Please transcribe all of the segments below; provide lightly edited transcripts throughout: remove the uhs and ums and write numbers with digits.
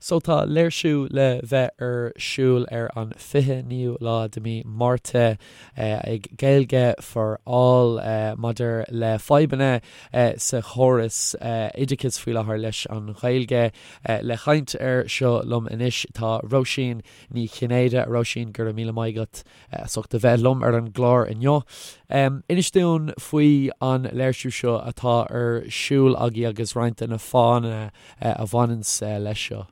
So tá léirsiú le bheith ar siúl ar an 29ú lá de mí Márta ag Gaeilge for All maidir le fadhbanna sa chóras oideachais faoi láthair leis an Ghaeilge. Le chaint air seo liom anois tá Róisín Ní Chinnéide. Róisín, go raibh míle maith agat as ucht a bheith liom ar an gclár inniu. Inis dúinn faoi an léirsiú seo atá ar siúl agaibh agus roinnt de na fáthanna a bhaineanns leis seo.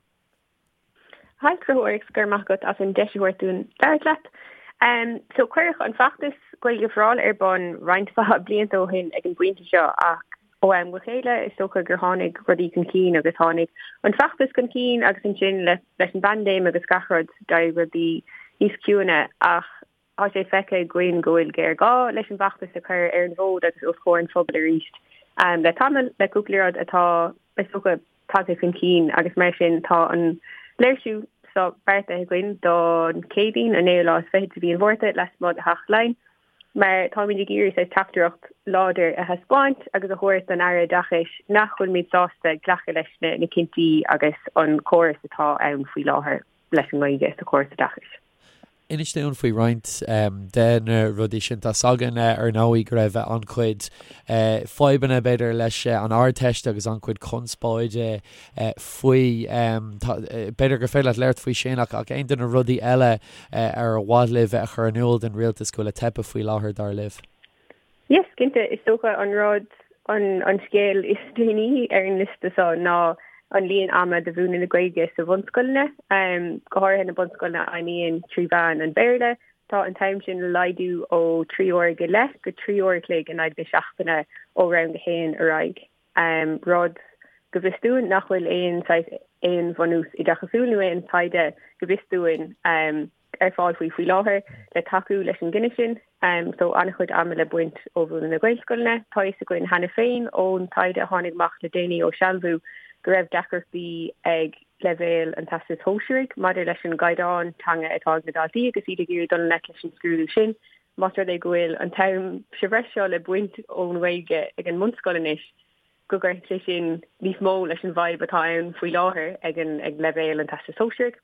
Hi Conchúr, go raibh maith agat as an deis a thabhairt dúinn labhairt leat. So cuireadh an feachtas Gaeilge for All ar bun roinnt mhaith blianta ó shin ag an bpointe seo ach ó am go chéile is dócha gur tháinig rudaí chun cinn agus tháinig an feachtas chun cinn agus ansin leis an bpaindéim agus gach rud d'éirigh rudaí níos ciúine ach tá sé feicthe againn go bhfuil géarghá leis an bhfeachtas a chur ar an bhfód agus os comhair an phobail arís le tamall, le cúpla rud atá, is dócha, tagtha chun cinn agus mar sin tá an léirsiú seo beartaithe againn don Chéadaoin, an naoú lá is fichead de mhí an Mhárta, lasmuigh de Theach Laighean. Mar táimid ag iarraidh saghas teachtaireacht láidir a thaispeáint agus a thabhairt don Aire Oideachais nach bhfuilimid sásta glacadh leis na cinntí agus an córas atá ann faoi láthair leis an nGaeilge sa chóras oideachais. Inis dúinn faoi roinnt de na rudaí sin. Tá's againn ar ndóigh go raibh an-chuid fadhbanna b'fhéidir leis an Ardteist agus an-chuid conspóide faoi. B'fhéidir gur féidir leat labhairt faoi sin ach aon de na rudaí eile ar mhaith libh a chur in iúl don rialtas go bhfuil ag teipeadh faoi láthair, dar libh? Yes, cinnte. Is dócha an rud, an scéal is déanaí ar an liosta seo ná an líon ama do mhúineadh na Gaeilge sa bhunscoileanna, go háirithe na bunscoileanna a fheidhmíonn trí mheán an Bhéarla. Tá an t-am sin le laghdú ó 3 uair go leith go 3 uair a chloig in aghaidh na seachtaine ó rang a haon ar aghaidh. Rud, go bhfios dúinn, nach bhfuil aon saghas, aon bhunús oideachasúil nó aon taighde, go bhfios dúinn, ar fáil faoi faoi láthair le tacú leis an gcinneadh sin. So an-chuid ama le baint ó mhúineadh na Gaelscoileanna. Tá a fhios againn cheana féin ón taighde a tháinig amach le déanaí ó Sealbhú go raibh deacrachtaí ag leibhéal an Teastais Shóisearaigh maidir leis an gcaighdeán teanga atá ag na daltaí agus iad ag iarraidh dul i ngleic leis an scrúdú sin. Más rud é go bhfuil an t-am sa bhreis seo le baint ón nGaeilge ag an mbunscoil anois, go gcuirfidh sé sin níos mó leis an bhfadhb atá ann faoi láthair ag an ag leibhéal an Teastais Shóisearaigh.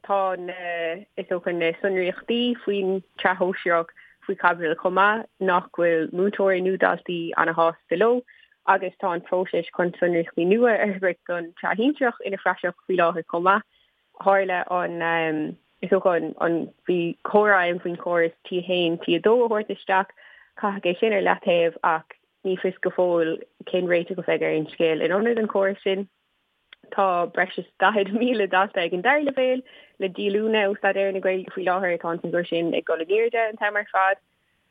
Tá na, is dócha, na sonraíochtaí faoin tsraith shóisearach faoi chaibidil chomh maith, nach bhfuil múinteoirí nó daltaí ana-shásta leo, agus tá an próiseas chun sonraíochtaí nua a fhorbairt don tsraith shinsearach ina phraiseach faoi láthair chomh maith. Tharla an, is dócha, an, an, bhí comhrá ann faoin chóras T1, T2 a thabhairt isteach, caitheadh é sin ar leataobh ach ní fios go fóill cén réiteach a bheidh ar an scéal in ionad an chórais sin. Tá breis is 40,000 dalta ag an dara leibhéal le díolúine ó staidéar na Gaeilge faoi láthair, tá an figiúr sin ag dul in airde an t-am ar fad.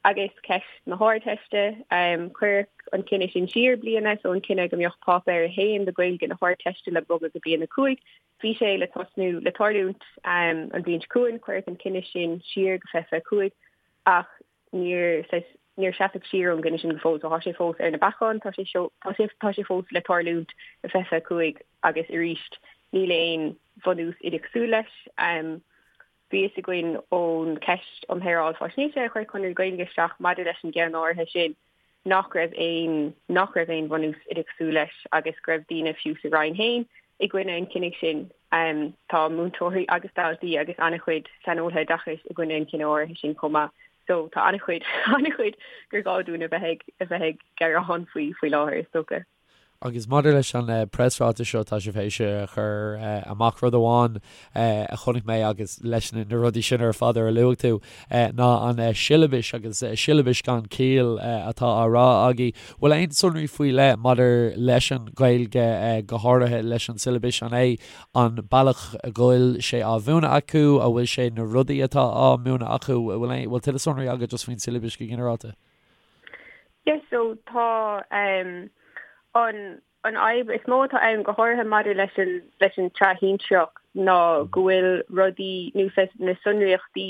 Agus ceist na hArdteiste, cuireadh an cinneadh sin siar bliain, so an cinneadh go mbeadh Páipéar 1 de Ghaeilge na hArdteiste le bogadh go bliain 5, Bhí sé le tosnú, le tarlúint an bhliain seo chugainn, cuireadh an cinneadh sin siar go 2025 ach níor, saghas, níor seasadh siar ón gcinneadh sin go fóill so tá sé fós ar na bacáin, tá sé seo, tá sé, tá sé fós le tarlúint i 2025 agus arís níl aon bhunús oideachasúil leis. Bhí fhios againn ón cheist um Shaoráil Faisnéise a chuir Conradh na Gaeilge isteach maidir leis an gceann áirithe sin nach raibh aon nach raibh aon bhunús oideachasúil leis agus go raibh daoine fiú sa Roinn féin i gcoinne an chinnidh sin. Tá múinteoirí agus daltaí agus an-chuid saineolaithe oideachais i gcoinne an chinnidh áirithe sin chomh maith. So tá an-chuid an-chuid gur gá dúinn a bheith ag a bheith ag gearán faoi faoi láthair is dócha. Agus maidir leis an preasráiteas seo, tá sibh théis a chur amach rud amháin a chonaic mé agus leis na rudaí sin ar fad ar a luaigh tú, ná an siollabais agus siollabais gan ciall atá á rá agaibh. Bhfuil aon sonraí faoi leith maidir leis an Ghaeilge, go háirithe leis an siollabais? An é an bealach a bhfuil sé á mhúineadh acu, an bhfuil sé na rudaí atá á múineadh acu? Bhfuil tuilleadh sonraí agat just faoin siollabais go ginearálta? Yes, so tá um, an an fhadhb is mó atá ann go háirithe maidir leis an leis an tsraith shinsearach ná go bhfuil rudaí nó na sonraíochtaí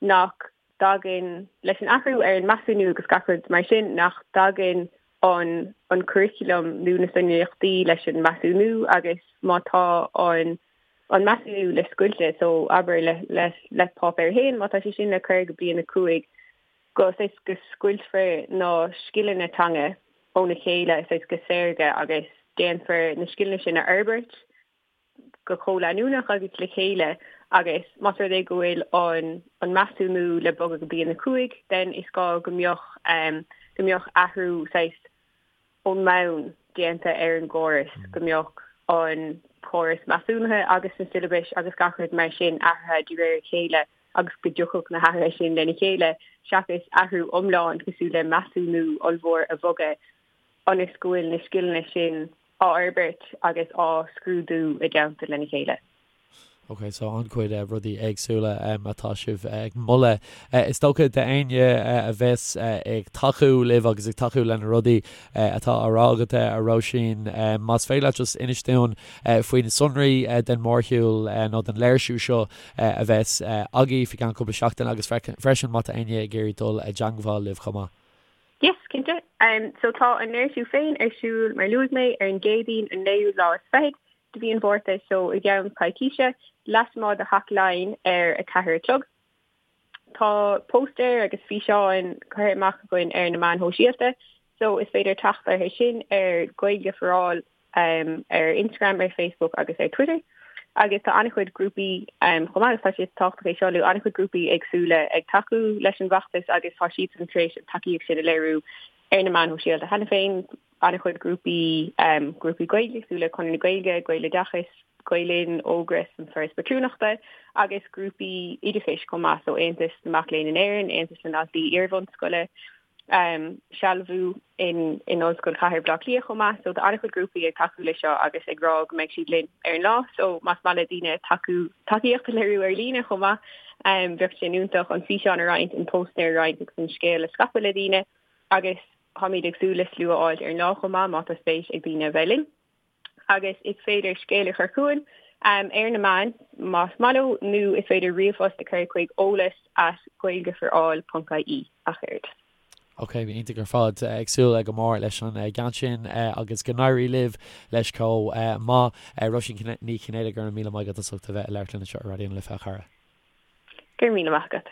nach dtagann leis an athrú ar an measúnú agus gach rud mar sin nach dtagann an an curriculum nó na sonraíochtaí leis an measúnú agus má tá an an measúnú le scoilteadh so abair le le le páipéar 1 má tá sé sin le cur go bliain 5 go saghas go scoiltfear na scileanna teanga óna chéile saghas go saorga agus déanfar na scileanna sin a fhorbairt. go comhleanúnach agus le chéile agus más rud é go bhfuil an an measúnú le bogadh go bliain 5 then is gá go mbeadh go mbeadh athrú saghas ón mbonn déanta ar an gcóras, go mbeadh an córas measúnaithe agus na siollabais agus gach rud mar sin athraithe de réir a chéile agus go dtiocfadh na hathruithe sin lena chéile seachas athrú iomlán cosúil le measúnú ollmhór a bhogadh ionas go bhfuil na scileanna sin á fhorbairt agus á scrúdú i dteannta lena chéile. Ok, so an-chuid rudaí éagsúla atá sibh ag moladh. Is dócha d'éinne a bheas ag tacú libh agus ag tacú le na rudaí atá á rá agat, a Róisín, más féidir leat just inis dúinn faoi na sonraí den mhórshiúl nó den léirsiú seo a bheas agaibh faoi cheann cúpla seachtain agus freisin má tá éinne ag iarraidh dul i dteangmháil libh chomh maith. Yes, cinnte. So tá an léirsiú féin ar siúl, mar luaigh mé, ar an gCéadaoin an naoú lá is fichead de mhí an Mhárta, so i gceann coicíse, lasmuigh de Theach Laighean ar 4 a chlog. Tá póstaeir agus físeáin curtha amach againn ar na meáin shóisialta, so is féidir teacht orthu sin ar Gaeilge for All ar Instagram, ar Facebook agus ar Twitter. Agus tá an-chuid grúpaí chomh maith, agus tá sé tábhachtach é seo a lua, an-chuid grúpaí éagsúla ag tacú leis an bhfeachtas agus tá siadsan tar éis an tacaíocht sin a léiriú ar na meáin shóisialta cheana féin, an-chuid grúpaí, grúpaí Gaeilge cosúil le Conradh na Gaeilge, Gaeloideachas, Gael Linn, Ógras, an Foras Patrúnachta agus grúpaí oideachais chomh maith, so Aontas na Mac Léinn in Éirinn, Aontas na nDaltaí Iarbhunscoile, Sealbhú in in Ollscoil Chathair Bhaile Átha Cliath chomh maith. So tá an-chuid grúpaí ag tacú leis seo agus ag rá go mbeidh siad linn ar an lá. So más maith le daoine tacú tacaíocht a léiriú ar líne chomh maith, bheadh sé iontach an físeán a roinnt, an póstaer a roinnt agus an scéal a scaipeadh le daoine agus Táimid ag súil le slua a fháilt ar an lá chomh maith má tá spéis ag daoine a bheith linn. Agus is féidir scéal a chur chugainn ar na meáin más maith leo nó is féidir ríomhphost a chur chuig eolas at gaeilgeforall ponc ie ach oiread. Ok, iontach ar fad. Ag súil go mór leis an gceann sin agus go n-éirí libh leis chomh maith. Róisín Ní Chinnéide, go raibh míle maith agat as ucht a bheith ag labhairt linn anseo ar Raidió na Life, a chara. Go raibh míle maith agat.